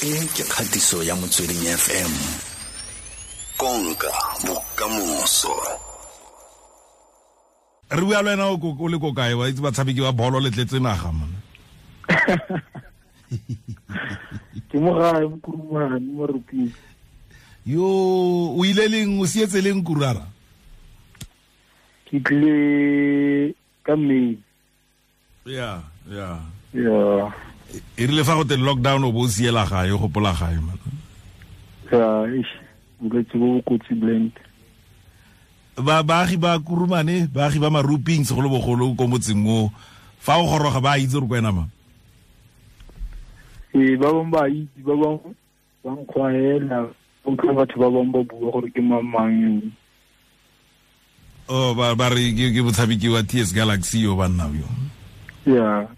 E ke kgatiso ya Motsweding FM. Konka bokamoso. Re bua le wena o le ko kae? Wa itse batshameki ba bolo le tletse naga mona. Ke mo gae mo Kurumane mo Maruping. Yo o ile leng, o sietse leng Kurara? Ke tlile ka May. Ya, ya. Ya. E rile fa go te lockdown o bo o siela gae, o gopola gae man. Ya, eish, bolwetse bo bo kotsi blend. Ba baagi ba Kurumane, baagi ba Maruping segolobogolo ko motseng o, fa o goroga ba itse gore ko wena mang? Ee, ba bangwe ba itse, ba bangwe ba nkgwaela, utlwa batho ba bangwe ba bua gore ke mang mang yo. Oh, ba re ke motshameki wa TS Galaxy yo banna yo. Yeah.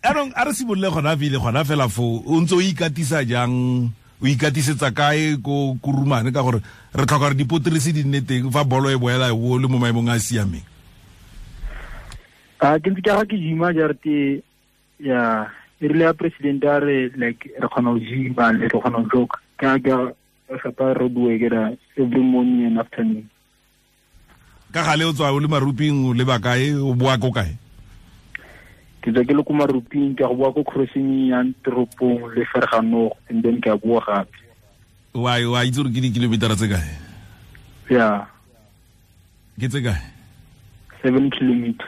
Anong a re simolole gona pele gona fela fo o ntse o ikatisa jang, o ikatisetsa kae ko Kurumane, ka gore re tlhoka gore dipotrisi di nne teng fa bolo e boela o le mo maemong a a siameng? A ke ntse ke aga ke gym-a jarte ya e rile ya president a re like re kgona go gym-a le re kgona go joke ka ka gapa road work ra every morning and afternoon. Ka gale o tswa o le Maruping o le ba kae, o boa ko kae? Ke tswa ke le ko Maruping, ke a go boa ko crossing ya toropong le Ferganogo, and then ke a boa gape. Wa itse gore ke di-kilometer tse kae? Yeah. Ke tse kae? 7 kilometer.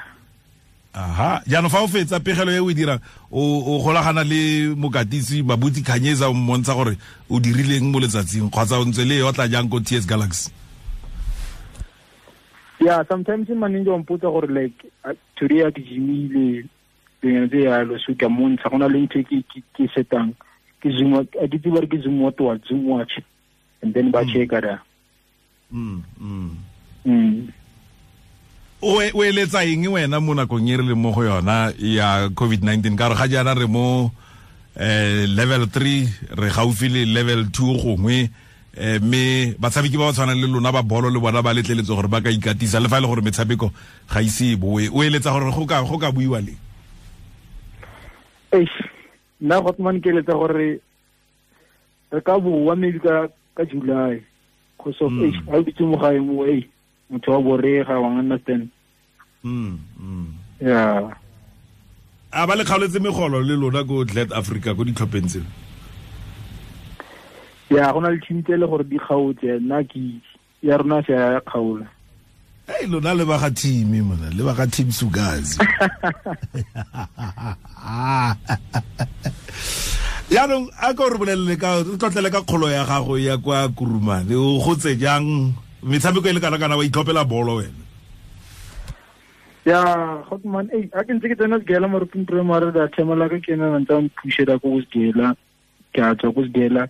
Aha, jaanong fa o fetsa pegelo e o e dirang, o golagana le mokatisi Mabuti Khanyeza, o mmontsha gore o dirileng mo letsatsing, kgotsa o ntse le e otla jang ko TS Galaxy? Yeah, sometimes manager o mpotsa gore like today a ke gymile, dingwe tse yalo, so ke a mmontsha, go na le ntho e ke setang, ke zoom, a ke tsebe gore ke zoom what wa, zoom watch, and then ba checka da. O eletsa eng wena mo nakong e re leng mo go yona ya COVID-19? Ka gore ga jaana re mo level 3, re gaufi le level 2 gongwe, mme batshameki ba ba tshwanang le lona ba bolo le bona ba letleletswe gore ba ka ikatisa, le fa e le gore metshameko ga ise e boe. O eletsa gore go ka buiwa leng? Eish, nna Gotman ke eletsa gore re ka boa maybe ka July, cause of eish, ha o ditse mo gae mo, ei, motho wa borega, wa understand. Yeah. A ba le kgaoletse megolo le lona ko Glad Africa ko ditlhopheng tseo? Ya, go na le team tse e le gore di kgaotse, nna ke itse. Ya rona se ya kgaola. Hey, lona le ba ga team mona, le ba ga team Sugazi. Jaanong a ka o re bolelele ka, o tlotlele ka kgolo ya gago ya kwa Kurumane, o gotse jang? Metshameko e le kana kana wa itlhophela bolo wena? Ya, Gotman, ei, a ke ntse ke tsena Segela Maruping Primary, da themela ka ke nna ntse a mphushela ko Segela, ke a tswa ko Segela,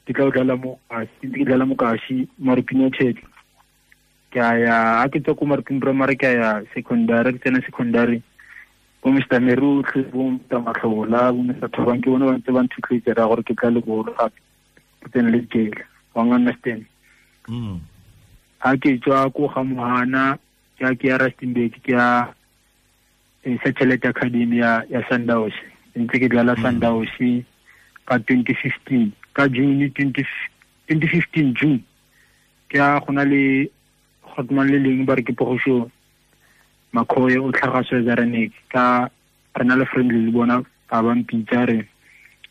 ke tla o dlala mo Kasi, ke ntse ke dlala mo Kasi, Maruping United. Ke a ya, a ke tswa ko Maruping Primary, ke a ya secondary, ke tsena secondary. Bo Mister Merutlhe, bo Mister Matlhola, bo Mister Thobang, ke bone ba ntse ba nthutloetsa ra gore ke tla le bolo gape, ke tsene le Segela, wa understand? Ha ke tswa ko ga Mohana, ke a ke ya Rustenburg, ke ya Satellite Academy ya Sundowns. Ntse ke dlala Sundowns ka 2015, ka June 2015 June. Ke a go na le Gotman le leng ba re ke Pogošo Makhoe o tlhaga Swaziland, ka re na le friendly le bona, ba ba mpitsa re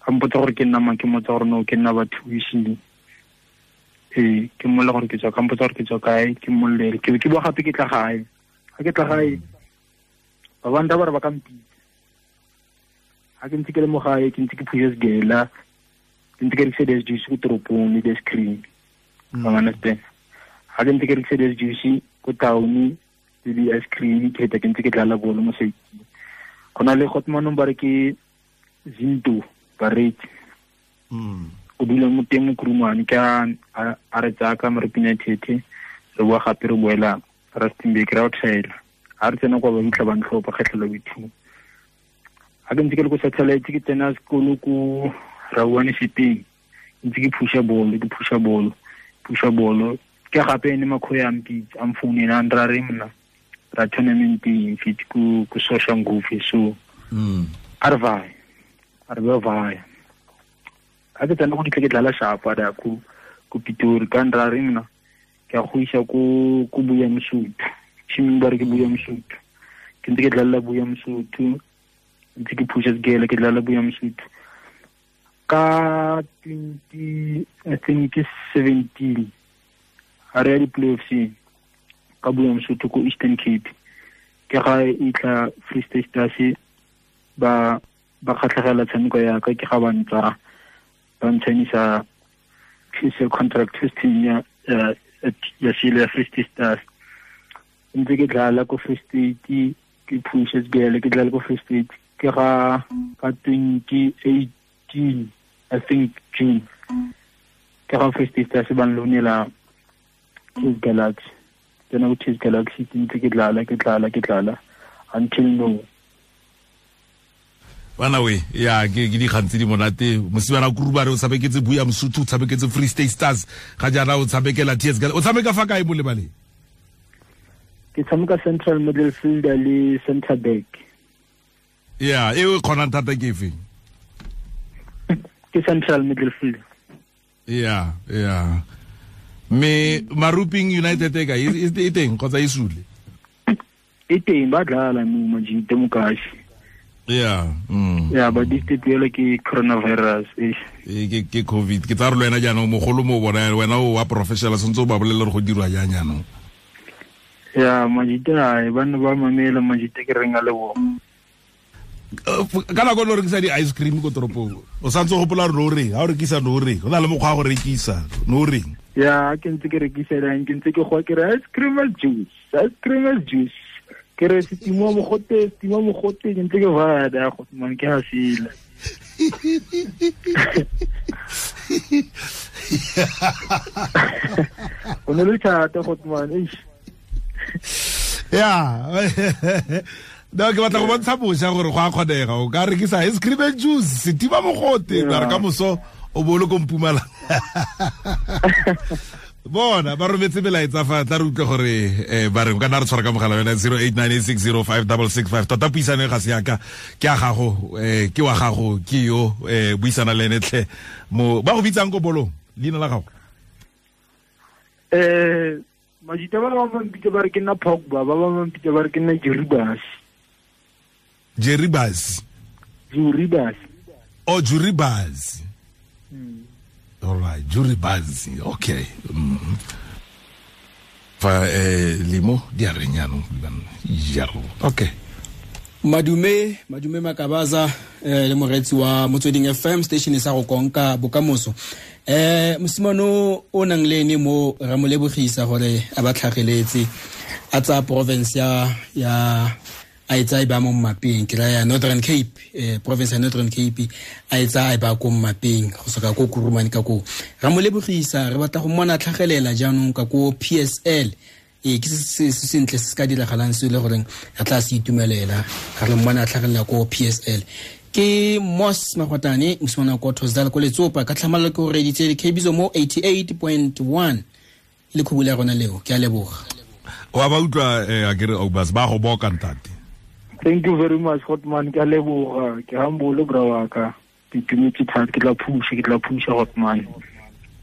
a mpotsa gore ke nna mang, ke mmotsa gore no ke nna bathusi. Ee, ke mmolla gore ke tswa, ka mpotsa gore ke tswa kae, ke mmollele. Ke be ke boa gape ke tla gae. Ha ke tla gae, ba banta ba re ba ka mpitsa. Ha ke ntse ke le mo gae, ke ntse ke phusha Segela, ke ntse ke rekisa di-ice juice ko toropong le di-ice cream. Wa understand? Ha ke ntse ke rekisa di-ice juice ko town le di-ice cream, ke feta ke ntse ke dlala bolo mo site. Go na le Gotmanong ba re ke Zinto Baretse. O dula mo teng mo Kurumane, ke a re tsaya ka Maruping United, re boa gape re boela Rustenburg, re a o thaela. Ha re tsena kwa ba fitlha ba ntlhopha kgetlho la boithuo. Ha ke ntse ke le ko satellite, ke tsena sekolo ko Rauwane Sepeng, ntse ke phusha bolo, ke phusha bolo, phusha bolo. Ke gape ene Makhoe a mpitsa, a mfounela, a nra re mna, ra tournament e fit ko Soshanguve, so a re vaya, a re ba vaya. A ke tsena go ditle ke dlala sharp da ku Pitori ka ndra re nna ke a go isa ko Buya Mosotho. Team ba re ke Buya Mosotho. Ke ntse ke dlala Buya Mosotho. Ntse ke pusha segele ke dlala Buya Mosotho. Ka 20 I think 17 a re ya di-playoffs ka Buya Mosotho ko Eastern Cape. Ke ga e tla Free State Stars ba kgatlhegela tshameko ya ka, ke ga ba ntsa ba ntshanisa PSL contract testing ya sele ya Free State Stars. Ntse ke dlala ko Free State, ke pusha segele ke dlala ko Free State. Ke ga ka 2018 I think June ke ga Free State Stars ba nlonela TS Galaxy. Tsena ko TS Galaxy ntse ke dlala until now. Bana we ya ke dikgang tse di monate. Mosimane a Kurubare o tshameketse Buya Mosotho, o tshameketse Free State Stars, ga jaana o tshamekela TS Galaxy. O tshameka fa kae mo lebaleng? Ke tshameka central midfielder le center back. Ya, e o kgonang thata ke efe? Ke central midfielder. Ya. Me Maruping United e ka e teng kgotsa e sule? E teng, ba dlala mo majite mokashi. Yeah. Yeah, but this ke coronavirus. Ke COVID. Ke tsa re le wena jaanong mogolo mo bona wena o wa professional sentse o ba bolelle gore go dirwa jang jaanong. Yeah, majite ai bana ba mamela majite ke reng a le bona. Ka nako lo rekisa di ice cream ko toropong. O santse o gopola gore no reng, ha o rekisa no reng. Go na le mokgwa wa go rekisa, no reng. Yeah, ke ntse ke rekisa lang, ke ntse ke go ke re ice cream and juice, ice cream and juice. Ke re setima mogote ke ntse ke bada go man ke ha sila. O ne le thata go man eish. Yeah. No, ke batla go bontsha bosha gore go a kgonega. O ka rekisa ice cream and juice, setima mogote, ba re ka moso o bo le ko Mpumalanga. Bona ba rometse melaetsa fa tla re utlwe gore ba re o ka nna re tshwara ka mogala wena 0898605665. Tota puisano e ga se yaka, ke a gago, ke wa gago, ke yo buisana le ene tlhe. Mo ba go bitsang ko bolong, leina la gago? Majita ba ba mpitsa ba re ke nna Pogba, ba ba mpitsa ba re ke nna Jeribas. Jeribas. Juribas. Oh, Juribas. All right, Juribas. Okay. Fa limo di arenyano jaro. Okay. Madume Makabaza le moretsi wa Motsweding FM station sa go konka bokamoso. Mosimane o nang le ene mo ra mo lebogisa gore a ba tlhageletse a tsa province ya a etsa e ba mo mmapeng, ke raya Northern Cape, province ya Northern Cape a etsa e ba ko mmapeng go soka ko Kurumane ka ko. Ra mo lebogisa, re batla go mmona tlhagelela jaanong ka ko PSL. Ke se sentle se ka diragalang se le goreng re tla se itumelela ga re mmona tlhagelela ko PSL. Ke Mos Magotane mosimane ko Thokozani ko Letsopa ka tlhamallo ke go reditse dikhebiso mo 88.1 le khubula ya rona leo. Ke a leboga. Wa ba utlwa a ke re Obas ba go boka ntate. Thank you very much Hotman, ke a leboga, ke humble bra wa ka. Ke itumetse thata, ke tla pusha Hotman.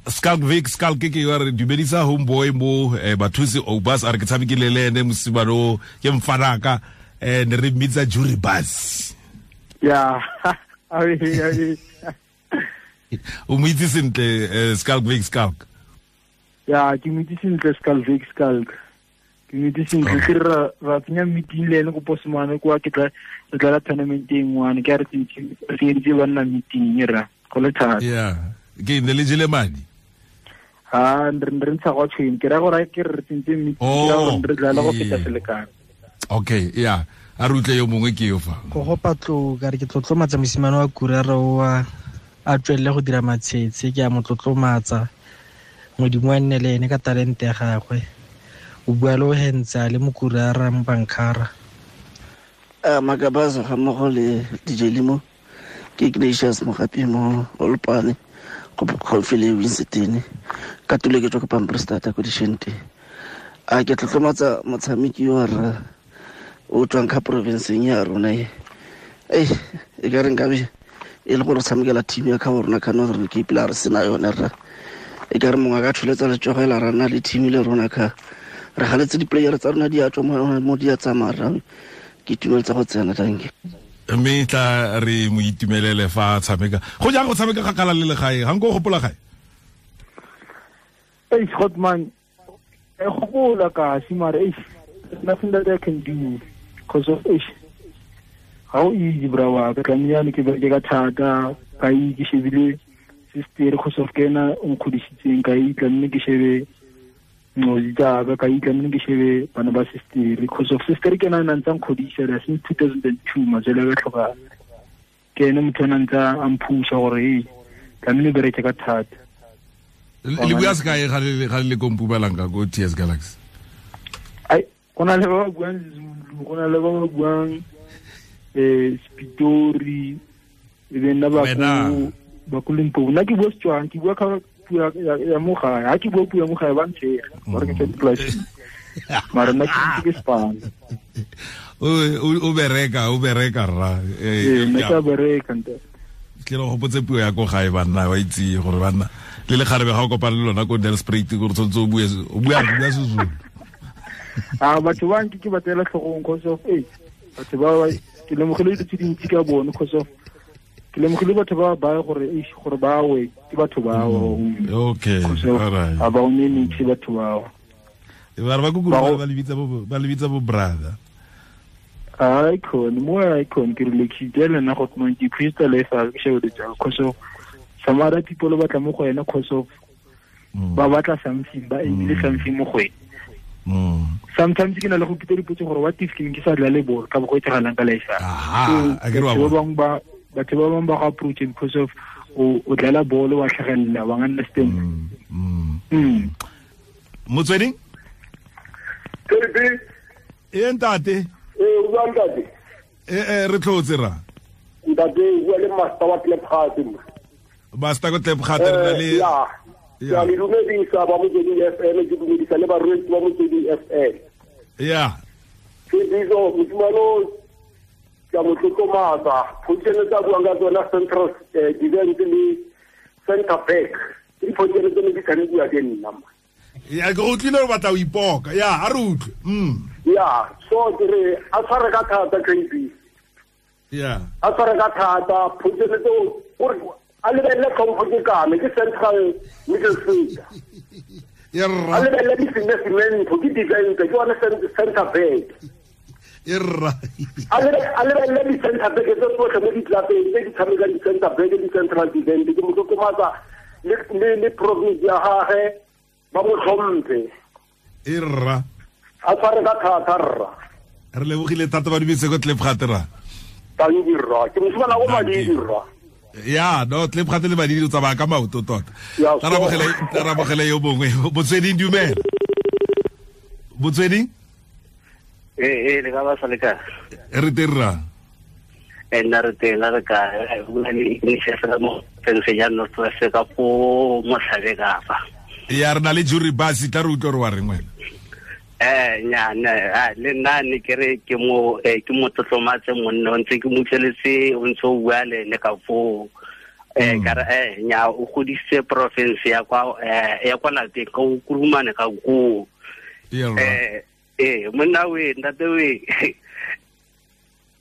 Skalk Vic Skalk ke wa re dumedisa homeboy mo bathusi Obas a re ke tshamekile le ene mosimane o ke mfanaka ne re mmitsa Juribas. Yeah. O mo itse sentle Skalk Vic Skalk. Yeah, ke mo itse sentle Skalk Vic Skalk. Ke mo itse sentle ke ra tsenya meeting le ene ko Posmane kwa ke tla re tla tournament e nngwe ke a re tsentse ba nna meeting ra go le thata. Yeah. Ke ne le jele madi. Ha re ntsha go tshweng ke ra gore ke re tsentse meeting ya gore re dlala go feta selekano. Okay, yeah. A re utlwe yo mongwe ke yo fa. Go go patlo ka re ke tlotlomatsa mosimane wa Kurara wa a tswelele go dira matshetse, ke a mo tlotlomatsa. Modimo a nne le ene ka talente ya gagwe. O bua le o hentsa le mokurara mo bankara. Makabaza ga mmogo le DJ Limo ke Ignatius Mogapi mo Olopane go gaufi le Winston ka tulo ke tswa ko Pamprestata ko Dishente. A ke tlotlomatsa motshameki wa rra o tswang ka provinceng ya rona e. E ka re nkabe E le gore tshamekela team ya ka rona ka Northern Cape la re sena yone rra. E ka re mongwe a ka tsholetsa letsogo la rana le team le rona ka re galetse di-player tsa rona di a tswa mo di a tsamaya rra. Ke itumeletse go tsena, thank you. Mme tla re mo itumelele fa tshameka. Go jang go tshameka kgakala le legae? Ga nko o gopola gae? Hey, Scotman, I gopola kasi mara there's nothing that I can do because of how easy bra wa ka tlamehile ke bereke ka thata ka ke shebile sister because of ke ena o nkgodisitseng ka tlamehile ke shebe nqozi tsaka ka tlamehile ke shebe bana ba sister because of sister ke ena a ntse a nkgodisa since 2002 matswele a ka tlhokana ke ene motho a ntse a mphusa gore hey tlamehile bereke ka thata. Le bua sekae ga le ko Mpumalanga ko TS Galaxy? Ai, go na le ba ba buang Zulu, go na le ba ba buang Spitori, e be nna ba ko Limpopo. Nna ke bua Setswana, ke bua ka puo ya mo gae. Ha ke bua puo ya mo gae ba ntshega, ba re ke tswa dipolasing. Mara nna ke Spanish. O bereka rra. Ee, nna ke a bereka ntate. Ke le gopotse puo ya ko gae banna wa itse gore banna le le kgarebe ga o kopana le lona ko Nelspruit gore tshwanetse o bue o bua Sezulu. Ah, batho ba nke ke ba tseela tlhogong cause of batho ba ke lemogile dilo tse dintsi ka bone cause of ke lemogile batho ba ba gore gore ba we ke batho bao. Okay, all right. A ba o ne nitse batho bao. Ba re ba kukuru ba le bitsa bo brother. Icon, more icon ke relaxitse le nna go tmo ke crystal life ke shebe tsa cause of some other people ba tla mo go ena cause of ba batla something ba ebile something mo go ena. Sometimes ke na le go pitsa dipotso gore what if ke ke sa dlale bolo ka bo go etsagalang ka life. Aha, a ke re wa batho ba bang ba go approach because of o dlala bolo wa tlhagelela wa understand. Motsweding? E ntate. O bua ntate. Re tlotse ra. Ntate o bua le master wa Klipgat. Master ko Klipgat re na le ya. Ya le dumedisa ba Motsweding FM, ke dumedisa le barwetsi ba Motsweding FM. Ya. Ke bizo mosimane ke a mo tlotlomatsa. Position tsa buang ka tsona central defense le center back. Ke diposition tse ne di tshamekiwa ke nna. Ya ke utlwile o batla o ipoka. Ya, a re utlwe. Ya, so ke re a tshware ka thata KB. Ya. A tshware ka thata position tseo gore a lebelele tlhompho ke kame ke central middle fielder. Ya rra. A lebelele di-cemento ke defense ke one center back. Ya rra. A lebelele di-center back tse tsotlhe mo ditlapeng tse di tshamekang di-center back di-central defense ke mo tlotlomatsa le province ya gagwe ba mo tlhomphe. E rra. A tshware ka thata rra. Re lebogile thata ba dumetse ko Klipgat rra. Tanki rra. Ke mosimane go Madidi rra. Ya, no Klipgat le Madidi o tsamaya ka maoto tota. Tarabogele yo bongwe. Motsweding dumela. Motsweding? Le ka ba sa le kae? Re teng rra. Nna re teng re kae? Go na le Ignatius mo Pennsylvania North West ka ko Motlhabe ka fa. Ya re na le jury basi tla re utlwe re wa reng wena. Nya le nna ne ke re ke mo tlotlomatse monna o ntse ke mo utlweletse o ntse o bua le ene ka foo. Ka re nya o godisitse province ya kwa lapeng ka o Kurumane ka koo. Monna we ntate we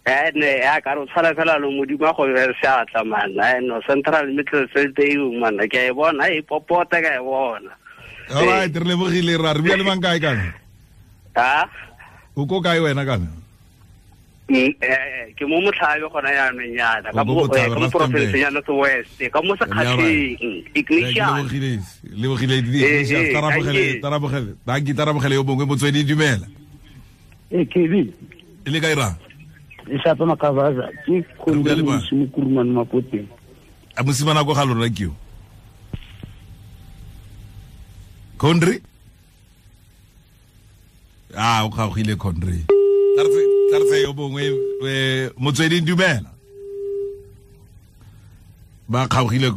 ne a ka re o tshwana fela le Modimo a go be seatla man. No central middle field eo man ke a e bona e popota ka e bona. All right, re lebogile ra re bua le mang kae kana? Ha? O ko kae wena kana? Ke mo Motlhabe gona jaanong yana ka mo province ya North West ka mo Sekgatlheng Ignatius. Lebogile Ignatius tarabogele danki tarabogele yo bongwe Motsweding dumela. KB. Le kae ra? E shapa Makavaza ke khonde mo Kurumane Mapoteng. A mosimana go ga lona ke yo. Condry? Ah, o kgaogile Condry. Tla yo bongwe Motsweding dumela. Ba kgaogile.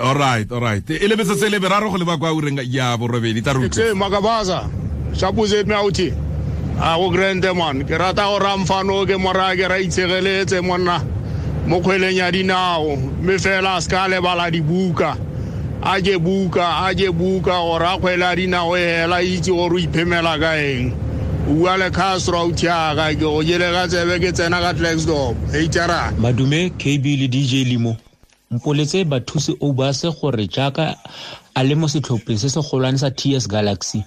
All right. E le metsotso e le meraro go leba kwa ureng ya borobedi tla re utlwe. Makabaza, shapuze me auti. A go grande man, ke rata go ramfano ke mora ke ra itshegeletse monna. Mo kgweleng ya dinao mme fela a se ka lebala dibuka a je buka gore a kgwele ya dinao e hela itse gore o iphemela ka eng. O bua le Castro authi aka ke go jele ka tsebe ke tsena ka Klerksdorp HR. Madume KB le DJ Limo mpoletse bathusi Obase gore jaaka a le mo setlhopheng se se golwane sa TS Galaxy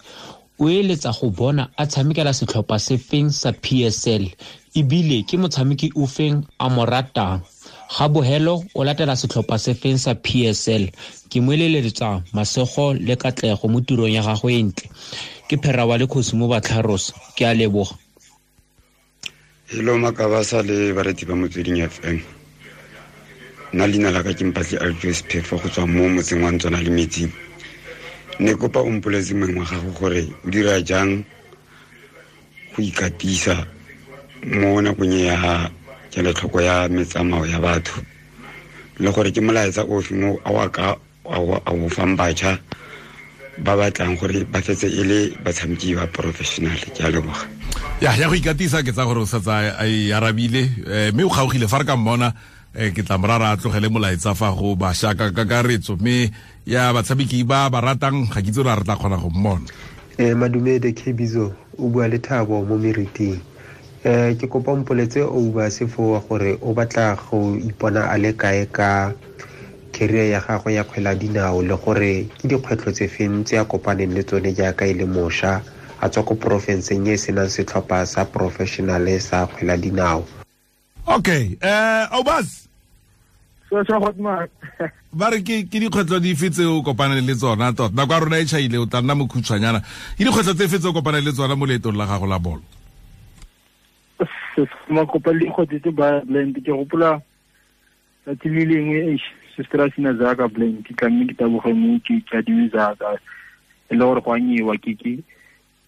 o eletsa go bona a tshamekela setlhopha se feng sa PSL ebile ke motshameki o feng a mo ratang. Ga bohelo o latela setlhopha se feng sa PSL. Ke mo eleletsa masego le katlego mo tirong ya gagwe e ntle. Ke phera wa le Kgosi mo Batlharos, ke a leboga. Hello Makabasa le bareetsi ba Motsweding FM. Nna leina la ka ke Mpatli Alfios Phefo go tswa mo motseng wa Ntswana le Metsing. Ne kopa o mpoletse mongwe wa gago gore o dira jang go ikatisa mo nakong ya kelotlhoko ya metsamao ya batho le gore ke molaetsa ofe mo a o fang batjha ba batlang gore ba fetse e le batshameki ba professional. Ke a leboga. Ya go ikatisa ke tsa gore o setse a e arabile mme o kgaogile fa re ka mmona ke tla morara a tlogele molaetsa fa go bašwa ka kakaretso mme ya batshameki ba ba ratang ga ke itse gore a re tla kgona go mmona. Madumede Kebizo o bua le Thabo mo meriting. Ke kopa mpoletse Obase fo gore o batla go ipona a le kae ka career ya gagwe ya kgwele ya dinao le gore ke dikgwetlho tse feng tse a kopaneng le tsone jaaka e le mošwa a tswa ko porofenseng e senang setlhopha sa professional sa kgwele ya dinao. Okay, Obas. So hot ba re ke dikgwetlho dife tse o kopaneng le tsona tota nako ya rona e tšhaile o tla nna mokhutshwanyana ke dikgwetlho tse fe tse o kopaneng le tsona mo leetong la gago la bolo? Makopa le dikgwetlho tse ba blend ke gopola tsatsi le lengwe sister sina zaka blend ke tlamme ke taboge mo ke adime zaka e le gore go a nyewa ke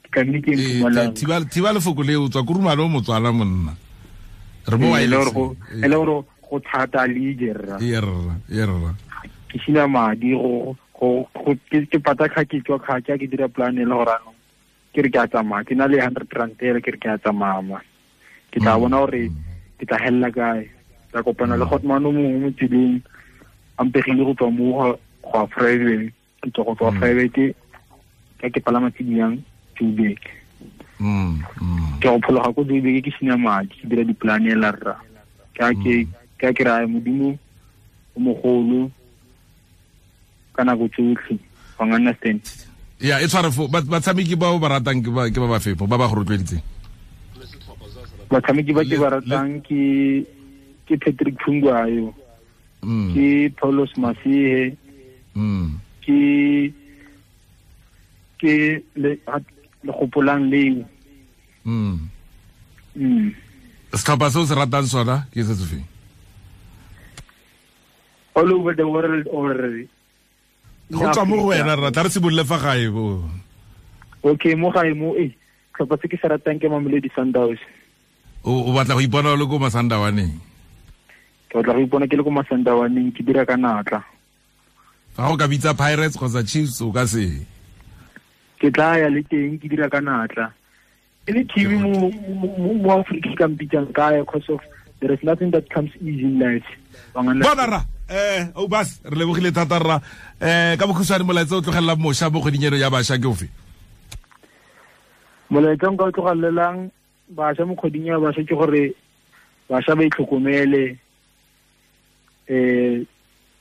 tlamme ke Mpumalanga. Thiba lefoko le o tswa kurumane o motswala monna re mo e le gore go thata le jerra yerra ke sina madi go ke pata kha ke tswa kha ke dira plan e le gore ano ke re ke a tsamaya ke na le 100 rand ele ke re ke a tsamaya ke tla bona gore ke tla hella kae. Tla kopana le Hotman o mongwe mo tseleng a mpegile go tswa mo go a private ke tswa go tswa private ka ke palama tse di yang Joburg. Ke go phologa ko Joburg ke sina madi ke dira di-plan ela rra ke ke raya modimo o mogolo ka nako tsotlhe wa understand. Ya e tshware fo batshameki ba o ba ratang ke ba ba fepo ba ba go rotloeditseng? Batshameki ba ke ba ratang ke Patrick Phungwayo, ke Paulos Masihe, ke le gopolang leo. Setlhopha se o se ratang sona ke se se feng? All over the world already. Go tswa mo go wena rra tla re simolole fa gae bo. Okay, mo gae mo setlhopha se ke se ratang ke Mamelodi Sundowns. O batla go ipona o le ko Masandawaneng? Ke batla go ipona ke le ko Masandawaneng ke dira ka natla. Fa go ka bitsa Pirates kgotsa Chiefs o ka se? Ke tla ya le teng ke dira ka natla. E le team mo Afrika ka mpitsang kae because of there is nothing that comes easy in life. Bona rra Obas re lebogile thata rra ka bokhutshwane molaetsa o tlogelela mošwa mo kgweding eno ya bašwa ke ofe? Molaetsa nka o tlogelelang bašwa mo kgweding ya bašwa ke gore bašwa ba itlhokomele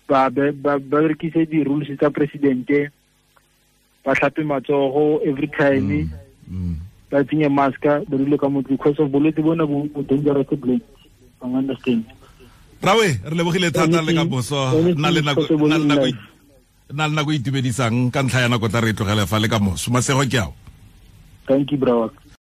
ba berekise di-rules tsa presidente ba tlhape matsogo every time ba tsenye maska ba dule ka motho because of bolwetse bona bo dangerous blend ba understand. Rawe re lebogile thata le ka boso nna le nako e itumedisang ka ntlha ya nako tla re tlogele fa le ka moso masego ke ao. Thank you bro.